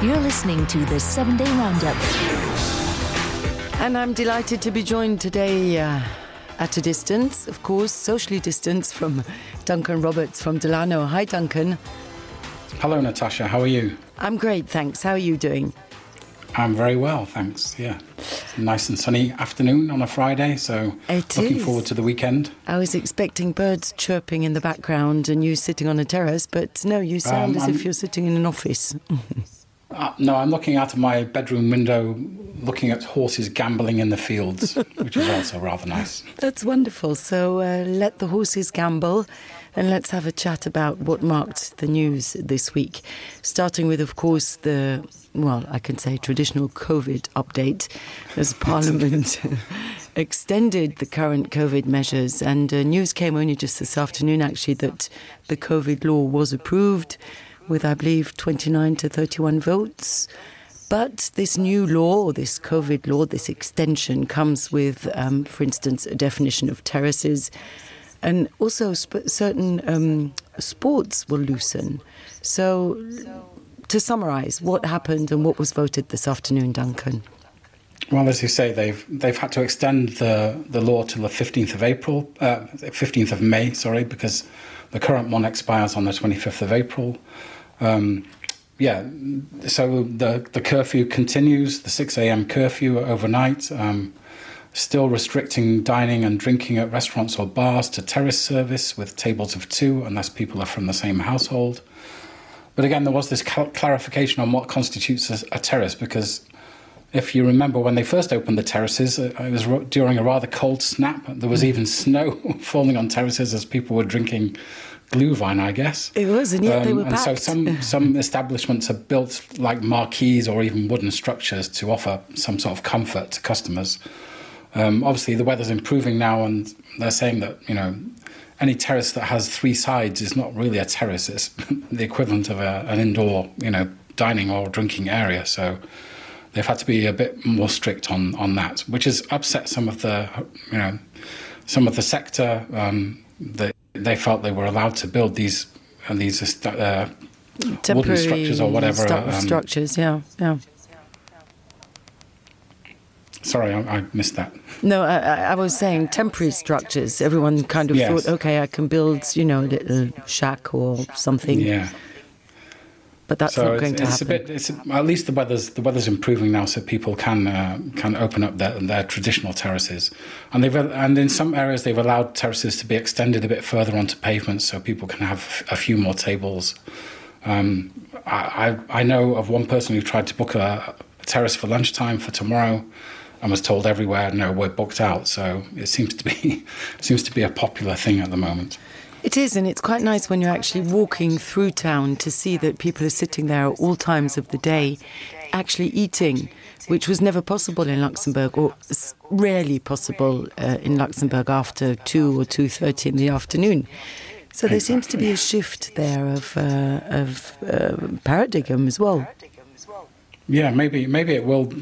You're listening to the 7-Day Roundup. And I'm delighted to be joined today at a distance, of course, socially distanced, from Duncan Roberts from Delano. Hi, Duncan. Hello, Natasha. How are you? I'm great, thanks. How are you doing? I'm very well, thanks. Yeah. It's a nice and sunny afternoon on a Friday, so looking forward to the weekend. I was expecting birds chirping in the background and you sitting on a terrace, but no, you sound as if you're sitting in an office. No, I'm looking out of my bedroom window, looking at horses gambling in the fields, which is also rather nice. That's wonderful. So let the horses gamble and let's have a chat about what marked the news this week. Starting with, of course, I can say traditional COVID update as Parliament extended the current COVID measures. And news came only just this afternoon, actually, that the COVID law was approved with, I believe, 29 to 31 votes. But this new law, or this COVID law, this extension comes with, for instance, a definition of terraces. And also certain sports will loosen. So to summarise, what happened and what was voted this afternoon, Duncan? Well, as you say, they've had to extend the law till the 15th of May, because the current one expires on the 25th of April. So the curfew continues, the 6 a.m. curfew overnight, still restricting dining and drinking at restaurants or bars to terrace service with tables of 2 unless people are from the same household. But again, there was this clarification on what constitutes a terrace, because if you remember when they first opened the terraces, it was during a rather cold snap. There was even snow falling on terraces as people were drinking Glühwein, I guess. It was, and yet they were packed. And so some establishments have built like marquees or even wooden structures to offer some sort of comfort to customers. Obviously, the weather's improving now, and they're saying that, any terrace that has 3 sides is not really a terrace. It's the equivalent of an indoor, dining or drinking area. So they've had to be a bit more strict on that, which has upset some of the sector. They felt they were allowed to build these temporary wooden structures or whatever. Structures, yeah. Sorry, I missed that. No, I was saying temporary structures. Everyone kind of thought, okay, I can build, a little shack or something. Yeah. But that's not going to happen. At least the weather's improving now, so people can open up their traditional terraces, and in some areas they've allowed terraces to be extended a bit further onto pavements, so people can have a few more tables. I know of one person who tried to book a terrace for lunchtime for tomorrow, and was told everywhere, no, we're booked out. So it seems to be a popular thing at the moment. It is, and it's quite nice when you're actually walking through town to see that people are sitting there at all times of the day actually eating, which was never possible in Luxembourg, or rarely possible in Luxembourg after 2 or 2:30 in the afternoon. So there seems to be a shift there of paradigm as well. Yeah, maybe it will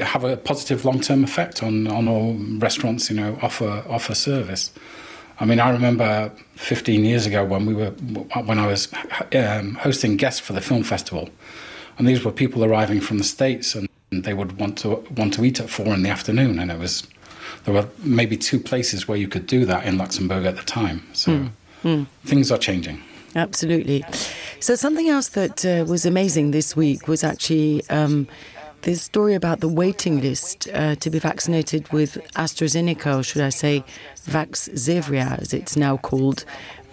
have a positive long-term effect on all restaurants, offer service. I mean, I remember 15 years ago when I was hosting guests for the film festival, and these were people arriving from the States, and they would want to eat at 4 in the afternoon, and there were maybe 2 places where you could do that in Luxembourg at the time. So things are changing. Absolutely. So something else that was amazing this week was actually this story about the waiting list to be vaccinated with AstraZeneca, or should I say Vaxzevria, as it's now called.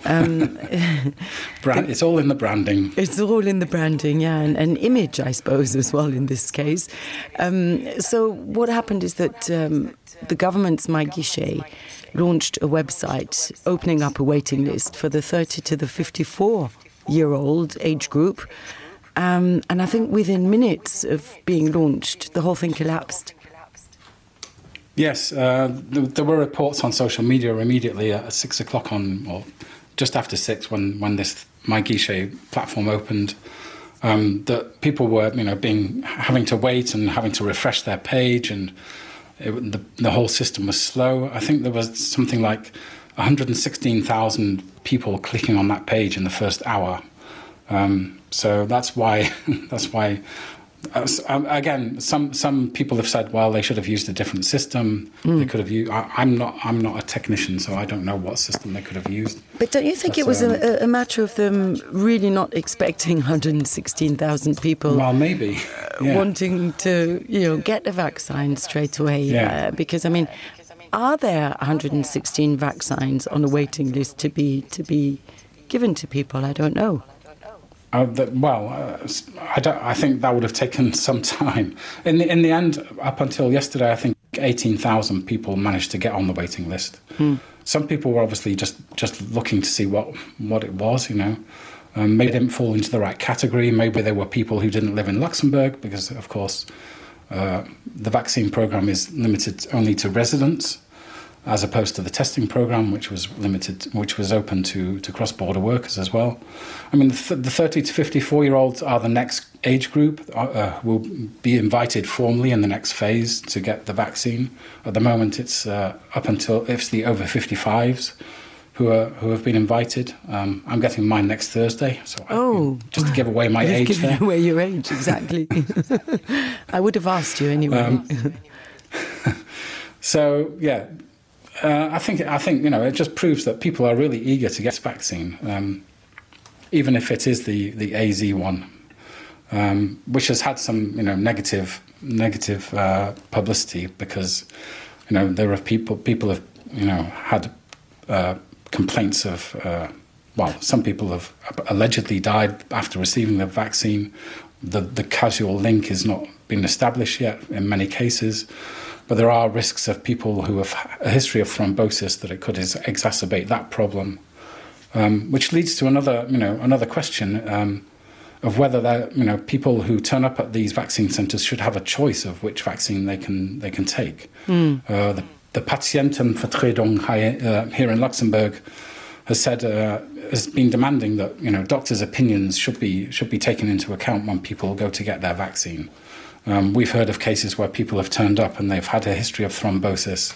It's all in the branding. It's all in the branding, yeah, and image, I suppose, as well in this case. So what happened is that the government's MyGuichet launched a website opening up a waiting list for the 30 to the 54-year-old age group. And I think within minutes of being launched, the whole thing collapsed. Yes, there were reports on social media immediately at 6 o'clock or just after 6 when this MyGuichet platform opened, that people were having to wait and having to refresh their page, and the whole system was slow. I think there was something like 116,000 people clicking on that page in the first hour. So that's why Again, some people have said, well, they should have used a different system. They could have used. I'm not a technician, so I don't know what system they could have used. But don't you think it was a matter of them really not expecting 116,000 people? Well, maybe wanting to, get the vaccine straight away. Yeah. Because I mean, are there 116 vaccines on a waiting list to be given to people? I don't know. I think that would have taken some time. In the end, up until yesterday, I think 18,000 people managed to get on the waiting list. Some people were obviously just looking to see what it was, Maybe they didn't fall into the right category. Maybe there were people who didn't live in Luxembourg because, of course, the vaccine program is limited only to residents, as opposed to the testing program, which was open to cross-border workers as well. I mean, the 30 to 54-year-olds are the next age group, will be invited formally in the next phase to get the vaccine. At the moment, it's up until it's the over 55s who have been invited. I'm getting mine next Thursday, so just to give away my age. You've given away your age, exactly. I would have asked you anyway. So yeah. I think it just proves that people are really eager to get this vaccine, even if it is the AZ one, which has had some negative publicity because there are people have had complaints of some people have allegedly died after receiving the vaccine. The causal link has not been established yet in many cases. But there are risks of people who have a history of thrombosis that it could exacerbate that problem, which leads to another question of whether people who turn up at these vaccine centres should have a choice of which vaccine they can take. The Patientenvertretung here in Luxembourg has been demanding that doctors' opinions should be taken into account when people go to get their vaccine. We've heard of cases where people have turned up and they've had a history of thrombosis.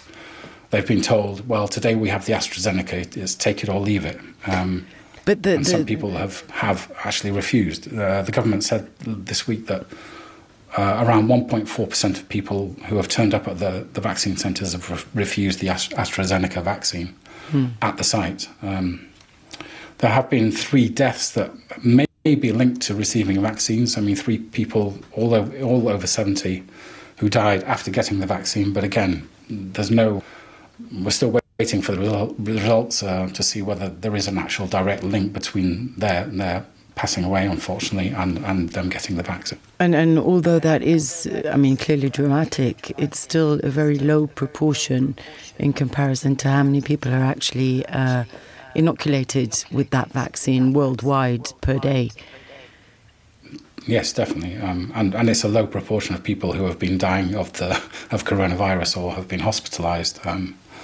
They've been told, well, today we have the AstraZeneca, it's take it or leave it. And some people have actually refused. The government said this week that around 1.4% of people who have turned up at the vaccine centres have refused the AstraZeneca vaccine at the site. There have been 3 deaths that may be linked to receiving vaccines. I mean, 3 people, all over 70, who died after getting the vaccine. But again, we're still waiting for the results to see whether there is an actual direct link between their passing away, unfortunately, and them getting the vaccine. And although that is, clearly dramatic, it's still a very low proportion in comparison to how many people are actually inoculated with that vaccine worldwide per day. Yes, definitely, and it's a low proportion of people who have been dying of coronavirus or have been hospitalised.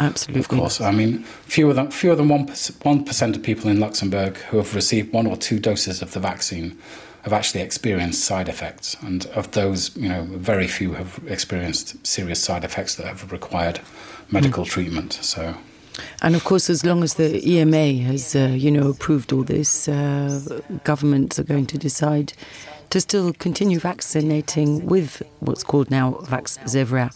Absolutely, of course. I mean, fewer than 1% of people in Luxembourg who have received 1 or 2 doses of the vaccine have actually experienced side effects, and of those, very few have experienced serious side effects that have required medical treatment. So. And of course, as long as the EMA has, approved all this, governments are going to decide to still continue vaccinating with what's called now Vaxzevria.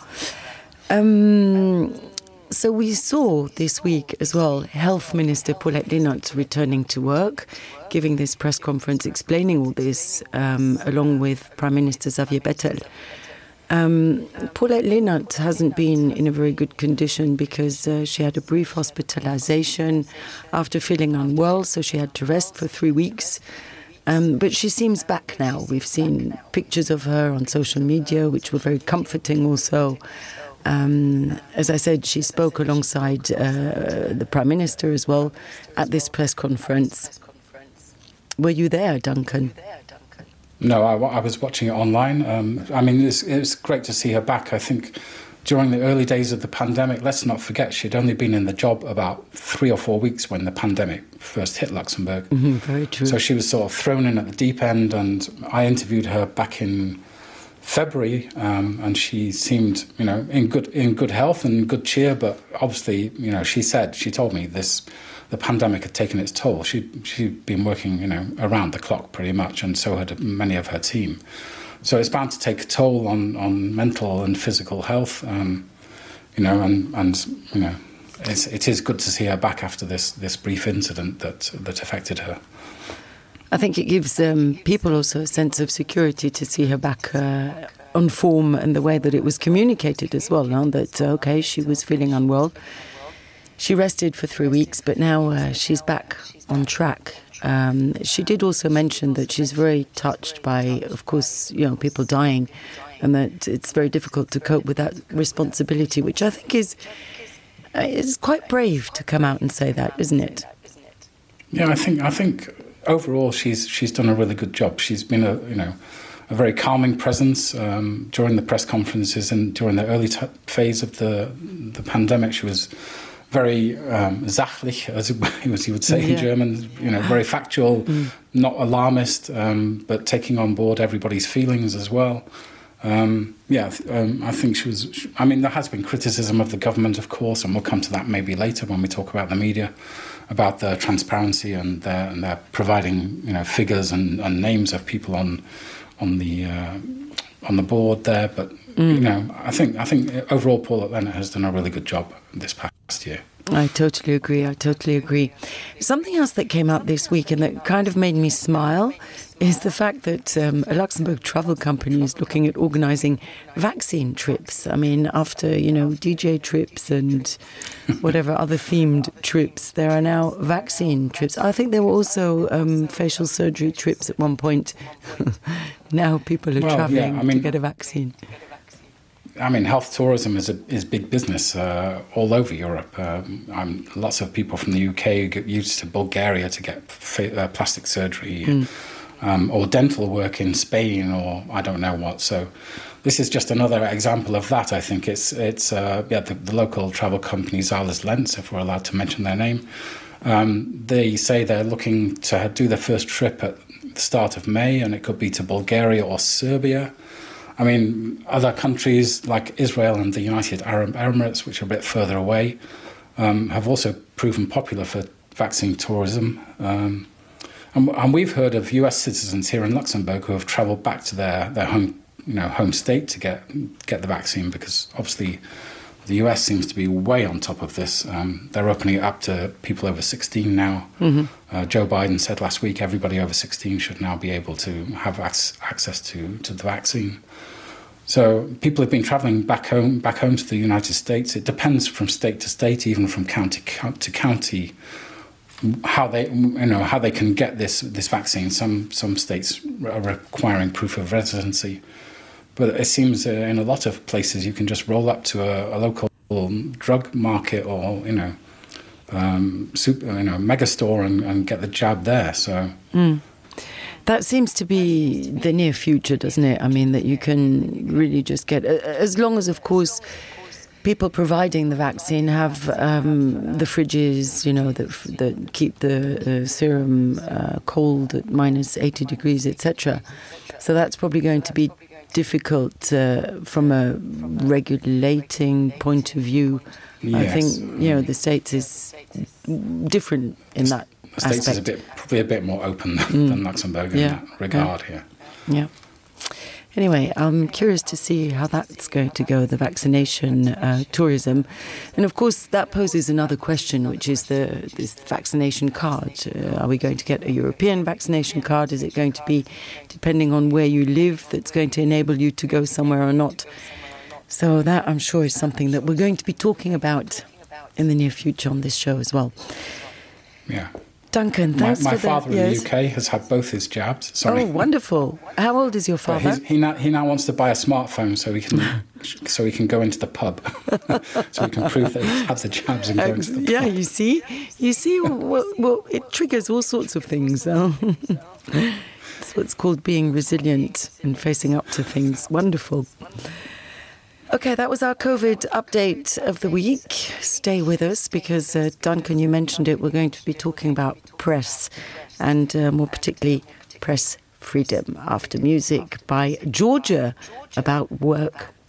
So we saw this week as well Health Minister Paulette Leenaert returning to work, giving this press conference explaining all this, along with Prime Minister Xavier Bettel. Paulette Leenaert hasn't been in a very good condition because she had a brief hospitalization after feeling unwell, so she had to rest for 3 weeks. But she seems back now. We've seen pictures of her on social media, which were very comforting also. As I said, she spoke alongside the Prime Minister as well at this press conference. Were you there, Duncan? No, I was watching it online. It's great to see her back. I think during the early days of the pandemic, let's not forget, she'd only been in the job about 3 or 4 weeks when the pandemic first hit Luxembourg. Very true. So she was sort of thrown in at the deep end, and I interviewed her back in February, and she seemed, in good health and good cheer. But obviously, she told me the pandemic had taken its toll. She'd been working, around the clock pretty much, and so had many of her team. So it's bound to take a toll on mental and physical health, you know, and you know, it is good to see her back after this brief incident that affected her. I think it gives people also a sense of security to see her back on form, and the way that it was communicated as well, no? That, okay, she was feeling unwell. She rested for 3 weeks, but now she's back on track. She did also mention that she's very touched by, of course, you know, people dying, and that it's very difficult to cope with that responsibility, which I think is quite brave to come out and say that, isn't it? Yeah, I think overall she's done a really good job. She's been a very calming presence during the press conferences and during the early phase of the pandemic. She was very sachlich, as you would say in German, you know, very factual, not alarmist, but taking on board everybody's feelings as well. I think she was. I mean, there has been criticism of the government, of course, and we'll come to that maybe later when we talk about the media, about their transparency and their providing, you know, figures and names of people on the board there. But you know, I think overall Paulette Leonard has done a really good job this past year. I totally agree. Something else that came up this week and that kind of made me smile is the fact that a Luxembourg travel company is looking at organising vaccine trips. I mean, after, you know, DJ trips and whatever other themed trips, there are now vaccine trips. I think there were also facial surgery trips at one point. Now people are travelling to get a vaccine. I mean, health tourism is big business all over Europe. Lots of people from the UK get used to Bulgaria to get plastic surgery or dental work in Spain or I don't know what. So this is just another example of that. I think it's the local travel company Zahles Lenz, if we're allowed to mention their name. They say they're looking to do their first trip at the start of May, and it could be to Bulgaria or Serbia. I mean, other countries like Israel and the United Arab Emirates, which are a bit further away, have also proven popular for vaccine tourism. And we've heard of US citizens here in Luxembourg who have travelled back to their home state to get the vaccine, because obviously the US seems to be way on top of this. They're opening it up to people over 16 now. Joe Biden said last week everybody over 16 should now be able to have access to the vaccine. So people have been travelling back home to the United States. It depends from state to state, even from county to county, how they can get this vaccine. Some states are requiring proof of residency, but it seems in a lot of places you can just roll up to a local drug market or mega store and get the jab there. So. That seems to be the near future, doesn't it? I mean, that you can really just get, as long as, of course, people providing the vaccine have the fridges, you know, that keep the serum cold at minus 80 degrees, etc. So that's probably going to be difficult from a regulating point of view. Yes. I think, you know, the States is different in that the States aspect. Is probably a bit more open than Luxembourg in that regard here. Yeah. Anyway, I'm curious to see how that's going to go, the vaccination tourism. And of course, that poses another question, which is this vaccination card. Are we going to get a European vaccination card? Is it going to be, depending on where you live, that's going to enable you to go somewhere or not? So that, I'm sure, is something that we're going to be talking about in the near future on this show as well. Yeah. Duncan, thanks my for father in the UK has had both his jabs. Sorry. Oh, wonderful. How old is your father? He now wants to buy a smartphone so he can go into the pub. So he can prove that he has the jabs and go into the pub. Yeah, you see, well, it triggers all sorts of things. It's what's called being resilient and facing up to things. Wonderful. Okay, that was our COVID update of the week. Stay with us because, Duncan, you mentioned it, we're going to be talking about press and more particularly press freedom after music by Georgia about work